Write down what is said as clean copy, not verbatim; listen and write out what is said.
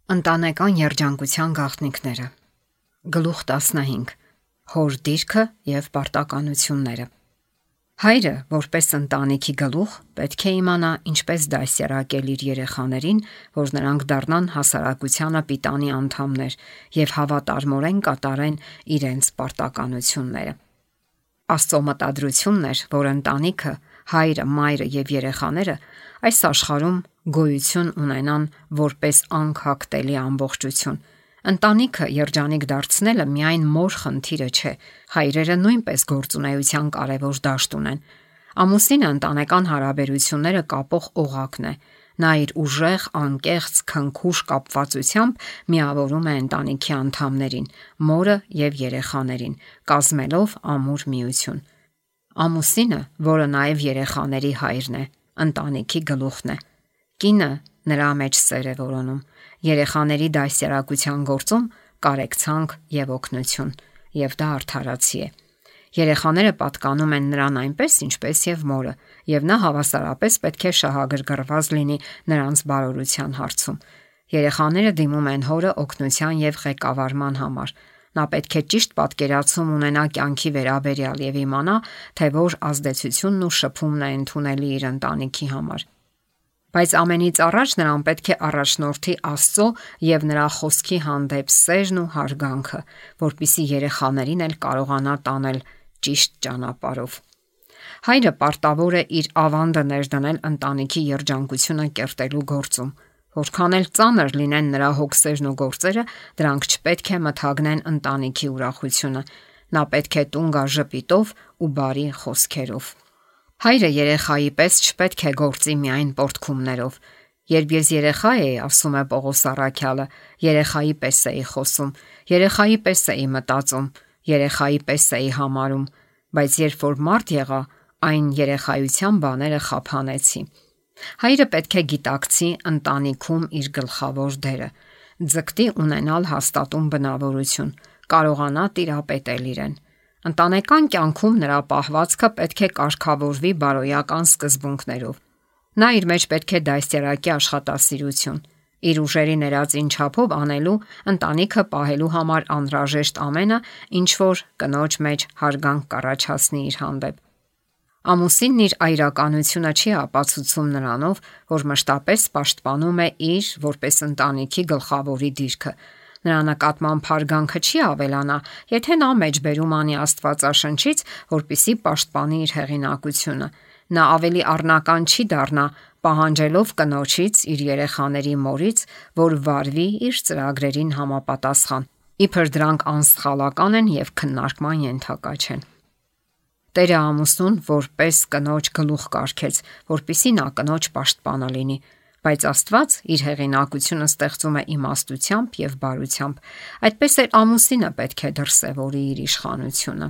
Ընտանեկան երջանկության գաղտնիքները։ Գլուխ 15. Հոր դիրքը եւ պարտականությունները։ Հայրը, որպես ընտանիքի գլուխ, պետք է իմանա ինչպես դասյարակել իր երեխաներին, որ նրանք դառնան հասարակությանը պիտանի անդամներ եւ հավատարմորեն կատարեն իրենց պարտականությունները։ Աստծո մտադրությունն էր, որ ընտանիքը, հայրը, մայրը եւ երեխաները այս աշխարհում գոյություն ունենան որպես անքակտելի ամբողջություն։ Ընտանիքը երջանիկ դարձնելը միայն մոր խնդիրը չէ, հայրերը նույնպես գործունեության կարևոր դաշտ ունեն։ Ամուսինը ընտանեկան հարաբերությունները կապող օղակն է։ Նա իր ուժեղ, անկեղծ, քնքուշ կապվածությամբ միավորում է ընտանիքի անդամներին, մորը եւ երեխաներին, կազմելով ամուր միություն։ Ամուսինը, որը նաեւ երեխաների հայրն է, ընտանիքի գլուխն է։ Կինը նրա մեջ սեր է որոնում։ Երեխաների դասյարակության գործում կարեկցանք եւ օգնություն, եւ դա արդարացի է։ Երեխաները պատկանում են նրան այնպես, ինչպես եւ մորը, եւ նա հավասարապես պետք է շահագրգռված լինի նրանց բարօրության հարցում։ Երեխաները դիմում են հորը օգնության եւ ղեկավարման համար։ Նա պետք է ճիշտ պատկերացում ունենա կյանքի վերաբերյալ եւ իմանա, թե որ ազդեցությունն ու շփումն է ընդունելի իր ընտանիքի համար։ Բայց ամենից առաջ նրան պետք է առաջնորդի Աստծո եւ նրա խոսքի հանդեպ սերն ու հարգանքը, որպիսի երեխաներին էլ կարողանա տանել ճիշտ ճանապարհով։ Հայրը պարտավոր է իր ավանդը ներդնել ընտանիքի երջանկությունը կերտելու գործում։ Որքան էլ ծանր լինեն նրա հոգսերն ու գործերը, դրանք չպետք է մթագնեն ընտանիքի ուրախությունը։ Նա պետք է տուն գա ժպիտով ու բարի խոսքերով։ Հայրը երեխայի պես չպետք է գործի միայն պոռթկումներով։ Երբ ես երեխա էի, ասում է Պողոս առաքյալը, երեխայի պես էի խոսում, երեխայի պես էի մտածում, երեխայի պես էի համարում, բայց երբ որ մարդ եղա, այն երեխայության բաները խափանեցի։ Հայրը պետք է գիտակցի ընտանիքում իր գլխավոր դերը, ձգտի ունենալ հաստատուն բնավորություն, կարողանա տիրապետել իրեն։ Ընտանեկան կյանքում նրա պահվածքը պետք է կարգավորվի բարոյական սկզբունքներով։ Նա իր մեջ պետք է դաստիարակի աշխատասիրություն, իր ուժերի ներածին չափով անելու, ընտանիքը պահելու համար անհրաժեշտ ամենը, ինչ որ կնոջ մեջ հարգանք կառաջացնի իր հանդեպ։ Ամուսինն իր այրականությունը չի ապացուցում նրանով, որ մշտապես պաշտպանում է իր որպես ընտանիքի գլխավորի դիրքը։ Նրա նկատմամբ հարգանքը չի ավելանա, եթե նա մեջբերում անի Աստվածաշնչից, որպիսի պաշտպանի իր հեղինակությունը։ Նա ավելի առնական չի դառնա, պահանջելով կնոջից, իր երեխաների մորից, որ վարվի իր ծրագրերին համապատասխան, իբր դրանք անսխալական են եւ քննարկման ենթակա չեն։ Տերը ամուսնուն որպես կնոջ գլուխ կարգեց, որպիսի նա կնոջ պաշտպանը լինի, բայց Աստված իր հեղինակությունը ստեղծում է իմաստությամբ եւ բարությամբ։ Այդպես էլ ամուսինը պետք է դրսևորի իր իշխանությունը։